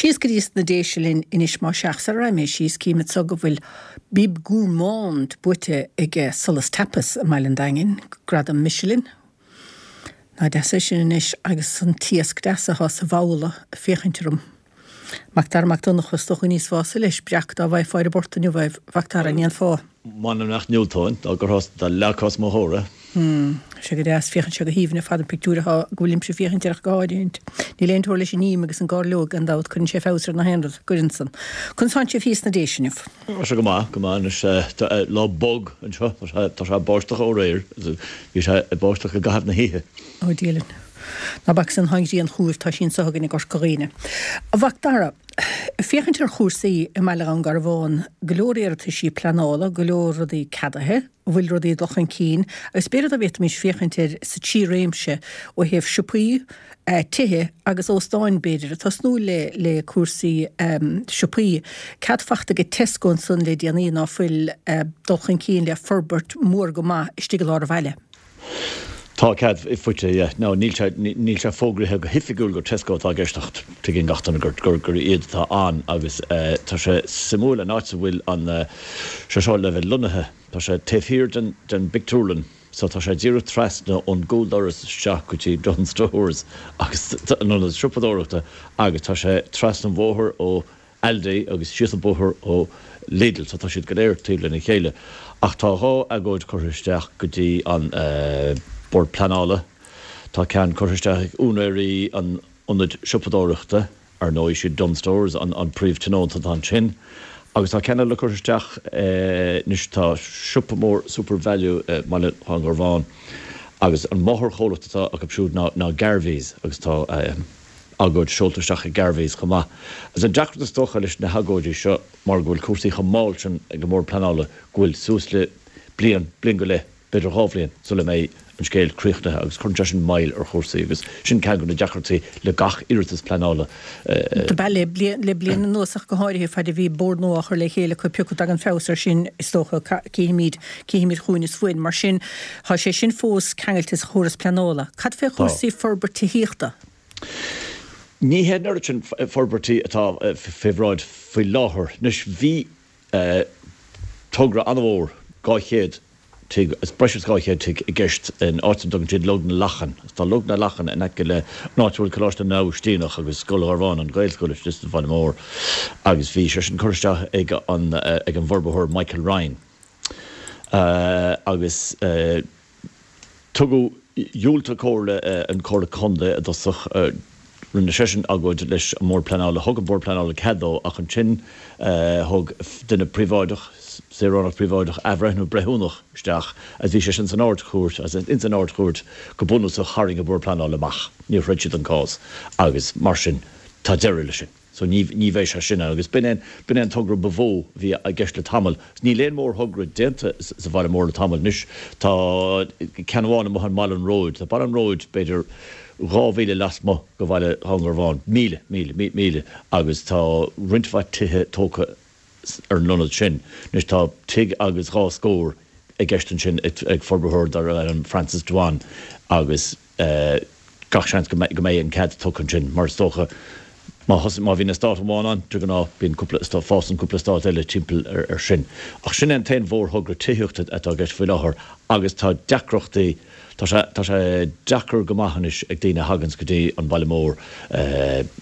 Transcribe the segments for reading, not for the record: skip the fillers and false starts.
Síos go dtí sna Déise linn anois más ea, sara raghaidh mé síos, cím anso go bhfuil Bib Gourmand buaite ag Solas Tapas i mBaile an Daingin, gradam Michelin. Nach deas é sin anois agus an t-iasc deas atá sa bhabhla ag féachaint orm. Mac Dara Mac Donncha, is dócha go n-íosfá leis breac dá bhfaighfeá ar an bport inniu é, a Mhac Dara, an ndéanfá? M'anam nach ndiúltóinn, dá gcuirfeá, dá leagfá os mo chomhair é. Hmm, sé go deas, féachann sé go haoibhinn ar fad an pictiúr atá, go bhfuilimse ag féachaint air ach go háirithint. Níl aon teora leis an ím agus an gairleog, gan dabht, cuireann sé feabhas ar na haon rud, gcuireann san. Conas tánn sibh thíos sna Déise inniu? Tá sé go maith, go maith anois, tá lá bog anseo, tá sé, tá sé ag báisteach ó aréir, bhí sé ag báisteach i gcaitheamh na hoíche. Ó Dia linn. Ná bac san, tá an ghrian chugaibh, tá sí anso againn i gCorca Dhuibhne. A Mhac Dara, ag féachaint ar chúrsaí i mBaile Dhún Garbhán, go leor iarrataisí pleanála, go leor rudaí ceadaithe, an bhfuil rudaí ag dul chun cinn agus b'fhéidir dá bhféadfaimis féachaint air sa trí réimse ó thaobh siopaí, tithe agus óstáin b'fhéidir, ag tosnú le le cúrsaí siopaí. Cead fachta ag Tesco ansan le déanaí ná fuil dul chun cinn le forbairt mór go maith istigh i lár an bhaile. Tá cead faighte, yeah. Now níl sé, níl sé fógraithe go hoifigiúil gur Tesco atá i gceist ach tuigeann gach duine gur, gur, gur iad atá ann agus tá sé suimiúil an áit a bhfuil an, sé seo le bheith lonnaithe, tá sé taobh thiar den, den bpictiúrlann so tá sé díreach trasna ón gcúldoras isteach go dtí Dunnes Stores agus an ionad siopadóireachta agus tá sé trasna an bhóthair ó Aldi agus síos an bóthar ó Lidl so tá siad go léir taobh lena chéile. Ach tá 2 agóid curtha isteach go dtí an Bord Pleanála. Tá ceann curtha isteach ag úinéirí an ionaid siopadóireachta, ar ndóigh siad Dunnes Stores an príomh-tionónta atá ansin, agus tá ceann eile curtha isteach anois, tá siopa mór Supervalu i mBaile Dhún Garbhán agus an máthairchomhlacht atá acu siúd ná Garveys agus tá. agóid seolta isteach ag Garveys chomh maith. Agus an deacracht is dócha leis na hagóidí seo mar go bhfuil cúrsaí chomh mall sin ag an mBord Pleanála go bhfuil suas le bliain, bliain go leith, b'fhéidir 2 bhliain sula mbeidh an scéal críochnaithe agus cuireann sé sin moill ar chúrsaí agus sin ceann de na deacrachtaí le gach iarratas pleanála. Do b'ea le le bliain anuas ach go háirithe faid a bhí bord nua á chur le chéile acu pioca dtagann feabhas air sin is dócha cífimid cífimid chugainn is uainn. Mar sin tá sé sin fós ceangailte sa chóras pleanála. Cad fé chúrsaí forbairt tithíochta? Ní hé an oiread sin forbairtí atá fé bhráid faoi láthair. Anois, bhí togra an-mhór, 200 tigh, breis is 200 tigh i gceist in áit a dtugann siad Log na Lachan. Tá Log na Lachan in aice le an áit a bhfuil Coláiste na nAibhistíneach agus Scoil Gharbháin, an Ghaelscoil istigh sa bhaile mór, agus bhí sé sin curtha isteach ag an ag an bhforbarthóir Michael Ryan. Agus. Tugadh, dhiúltaigh Comhairle, an Comhairle Contae i dtosach, rinne seisean agóid leis an mBord Pleanála, thug an Bord Pleanála cead dó ach ansin thug duine príobháideach, saoránach príobháideach, athbhreithniú breithiúnach isteach agus bhí sé sin san Ard-Chúirt agus ins an Ard-Chúirt go bunúsach tharraing an Bord Pleanála amach, níor throid siad an cás agus mar sin tá deireadh leis sin. So ní, ní bheidh sé sin ann. Agus b'in é, b'in é an togra ba mhó a bhí i gceist le tamall. Níl aon mhórthogra déanta sa bhaile mór le tamall anois. Tá ceann amháin amuigh i mBaile an Róid. Tá Baile an Róid b'fhéidir 2 mhíle lasmuigh de bhaile Dhún Garbhán, míle, míle, míle, agus tá roinnt mhaith tithe tógtha ar an ionad sin. Anois tá tigh agus dhá scór i gceist ansin ag forbarthóir darbh ainm Francis Dwan agus gach seans go mbeidh an cead tugtha ansin mar is dócha má thosaigh, má bhíonn eastát amháin ann, de ghnáth bíonn cúpla, fásann cúpla eastát eile timpeall air sin. Ach sin é an t-aon mhórthogra tithíochta atá i gceist faoi láthair agus tá deacrachtaí, tá sé, tá sé deacair go maith anois ag daoine a thaganns go dtí an baile mór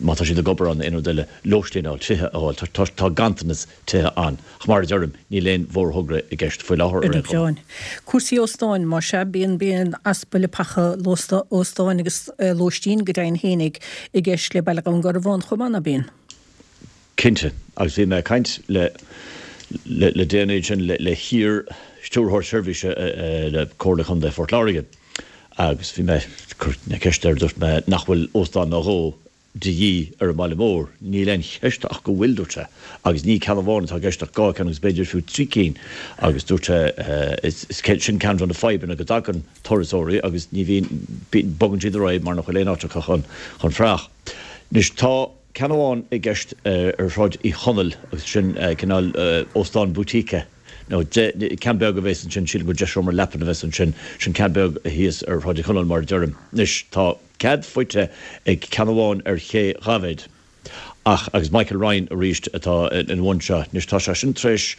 má tá siad ag obair ann nó aon rud eile, lóistín a fháil, tithe a fháil, tá, tá ganntanas tithe ann. Ach mar a deirim, níl aon mhórthogra i gceist faoi láthair ar aon chuma. Cúrsaí óstáin, más ea, bíonn bíonn easpa leapacha óstáin agus lóistín go deimhin fhéinig i gceist le Baile Dhún Garbhán chomh maith, ná bíonn? Cinnte, agus bhí mé ag caint le le déanaí ansin le hiar-Stiúrthóir Seirbhíse le Comhairle Chontae Phort Láirge agus bhí mé ag cur na ceiste air, dúirt mé nach bhfuil óstán nó dhó de dhíth ar an mbaile mór. Níl aon cheist ach go bhfuil, dúirt sé, agus ní ceann amháin atá i gceist ach 2 ceann agus b'fhéidir fiú 3 cinn agus dúirt sé is sin ceann de na fadhbanna go dtagann turasóirí agus ní bhíonn, bogann siad ar aghaidh mar nach bhfuil aon áit acu chun chun fuireach. Anois tá ceann amháin i gceist ar Shráid Uí Chonaill agus sin cineál óstán boutique nó ceann beag a bheas ansin, sílim gur 10 seomra leapan a bheas ansin, sin ceann beag thíos ar Shráid Uí Chonaill mar a deirim. Anois tá. Cead faighte ag ceann amháin ar Ché Dhaibhéid. Ach, agus Michael Ryan arís atá ina bhun seo. Anois tá sé sin tar éis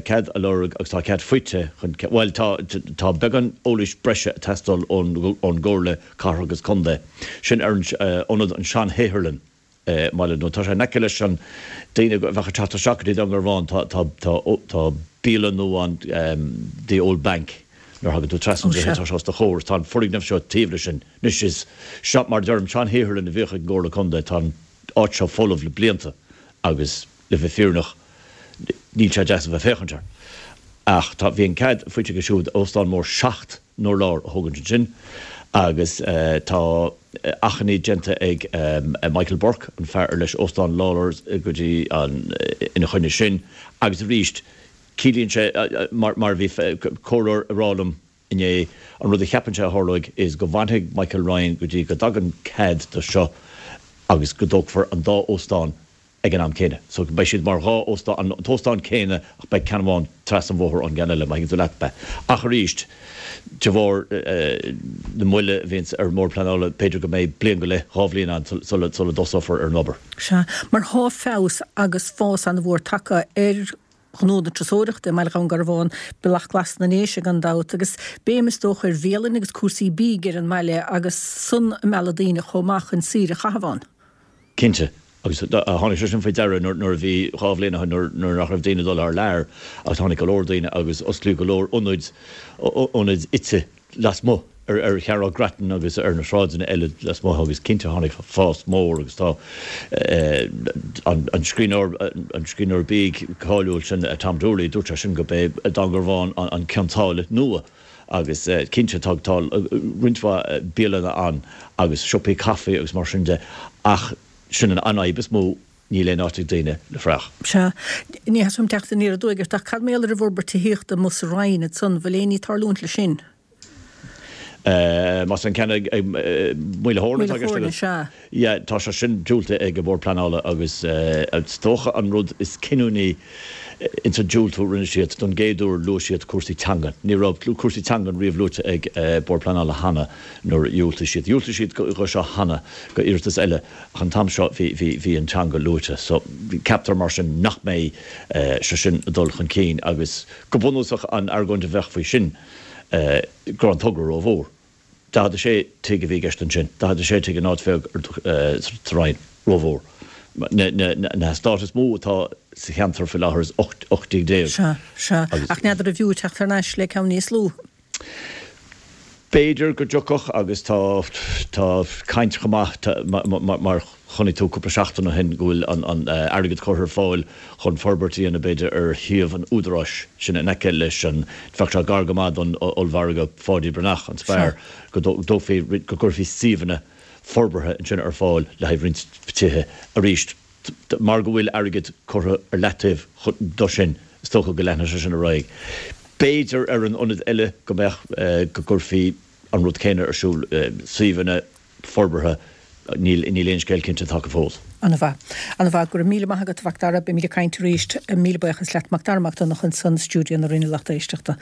cead a lorg agus tá cead faighte chun, bhuel tá, tá beagán eolais breise ag teastáil ón gComhairle Cathrach agus Contae. Sin ar an ionad an sean-shaotharlann i mBaile nó tá sé in aice leis an daoine a bheadh ag teacht isteach go dtí Dún Garbhán tá, tá, tá, tá bialann nua ann, The Old Bank nuair a thagann tú trasna an droichead tá sé os do chomhair tá an foirgneamh seo taobh leis sin. Anois is seo, mar a deirim, sean-shaotharlann a bhíodh ag an gComhairle Contae. Tá an áit seo folamh le blianta agus, le bheith fírinneach, níl sé deas a bheith ag féachaint air. Ach tá, bhí an cead faighte aige siúd óstán mór 7 n-urlár a thógaint ansin agus tá achainí déanta ag Michael Burke, an fear ar leis Óstán Lawlor's go dtí an, ina choinne sin agus arís ciallaíonn sé, mar a bhí comhairleoir ag rá liom, Inné. An rud a cheapann sé a tharlóidh is go bhfanfaidh Michael Ryan go dtí go dtagann cead do seo agus go dtógfar an dá óstán ag an am céanna. So beidh siad mar dhá óstán, an t-óstán céanna ach beidh ceann amháin trasna an bhóthair ón gceann eile, má thuigeann tú leat mé. Ach arís, de bharr na moille a bhíonns ar an mBord Pleanála, b'fhéidir go mbeidh bliain go leith, 2 bhliain ann sula dtosófar ar an obair. Sea, mar thá feabhas agus fás an-mhór tagtha ar ghnó na turasóireachta i mBaile Dhún Garbhán, Bealach Glas na nDéise gan dabht, agus béim is dócha ar bhialanna agus cúrsaí bídh ar an mbaile agus san ag mealladh daoine chomh maith chun saoire a chaitheamh ann. Cinnte, agus tháinig sé sin faoi deara nuair a bhí, 2 bhliain ó shin, nuair nach raibh daoine ag dul thar lear agus tháinig go leor daoine agus osclaíodh go leor ionaid, ionaid ite lasmuigh ar Cheathrú Grattan agus ar na sráideanna eile lasmuigh agus cinnte tháinig fás mór agus tá an scríbhneoir, an scríbhneoir bídh cáiliúil sin Tom Doorley, dúirt sé sin gurb é Dún Garbhán an Cionn tSáile nua agus cinnte tá tá roinnt mhaith bialanna ann agus siopaí caife agus mar sin de ach sin an fhadhb is mó Níl aon áit ag daoine le fraoch. Sea. Ní theastaíonn uaim teacht aniar aduaidh ort, ach cad mar gheall ar an bhforbairt tithíochta amuigh sa Rinn ansan, bhfuil aon ní ag tarlúint leis sin? Más an ceann ag Maoil a' Thóirne atá i gceist agat? Sea. Yeah, tá sé sin diúltaithe ag an Bhord Pleanála agus is dócha an rud is cinniúnaí ins an diúltú a rinne siad, don gcéad uair luaigh siad cúrsaí teangan. Ní raibh cúrsaí teangan riamh luaite ag Bord Pleanála cheana nuair a dhiúltaigh siad. Dhiúltaigh siad dho seo cheana, go iarratas eile. Ach an t-am seo bhí, bhí, bhí an teanga luaite. So, ceaptar mar sin nach mbeidh sé sin ag dul chun cinn agus go bunúsach an argóint a bheadh faoi sin go raibh an togra rómhór. 46 tigh a bhí i gceist ansin, 46 tigh in áit bheag sa Rinn, rómhór. Na, na, na heastáit is mó atá sa cheantar faoi láthair is 18 tigh. Sea, sea. Ach n'fheadar an bhfiú teacht thar n-ais le ceann níos lú. B'fhéidir go dtiocfadh agus tá tá caint chomh maith mar chonaic tú cúpla seachtain ó shin go bhfuil an airgead curtha ar fáil chun forbairt a dhéanamh b'fhéidir ar shuíomh an Údaráis sin in aice leis an bheadh sé gar go maith don ollmhargadh Pháidí Breathnach, an Spar, go dtógfaí go gcuirfí suíomhanna forbartha ansin ar fáil le haghaidh roinnt tithe arís. Mar go bhfuil airgead curtha ar leataobh do sin, is dócha go leanfaidh sé sin ar aghaidh. B'fhéidir ar an ionad eile go mbeadh, go gcuirfí an rud céanna ar siúl, suíomhanna forbartha, níl aon scéal cinnte tagtha fós. An-mhaith. An-mhaith. Go raibh míle maith agat, a Mhac Dara. Beimid ag caint arís. Míle buíochas leat, Macdara Mac Donncha, ansan i stiúideo na Roinne Lucht Éisteachta.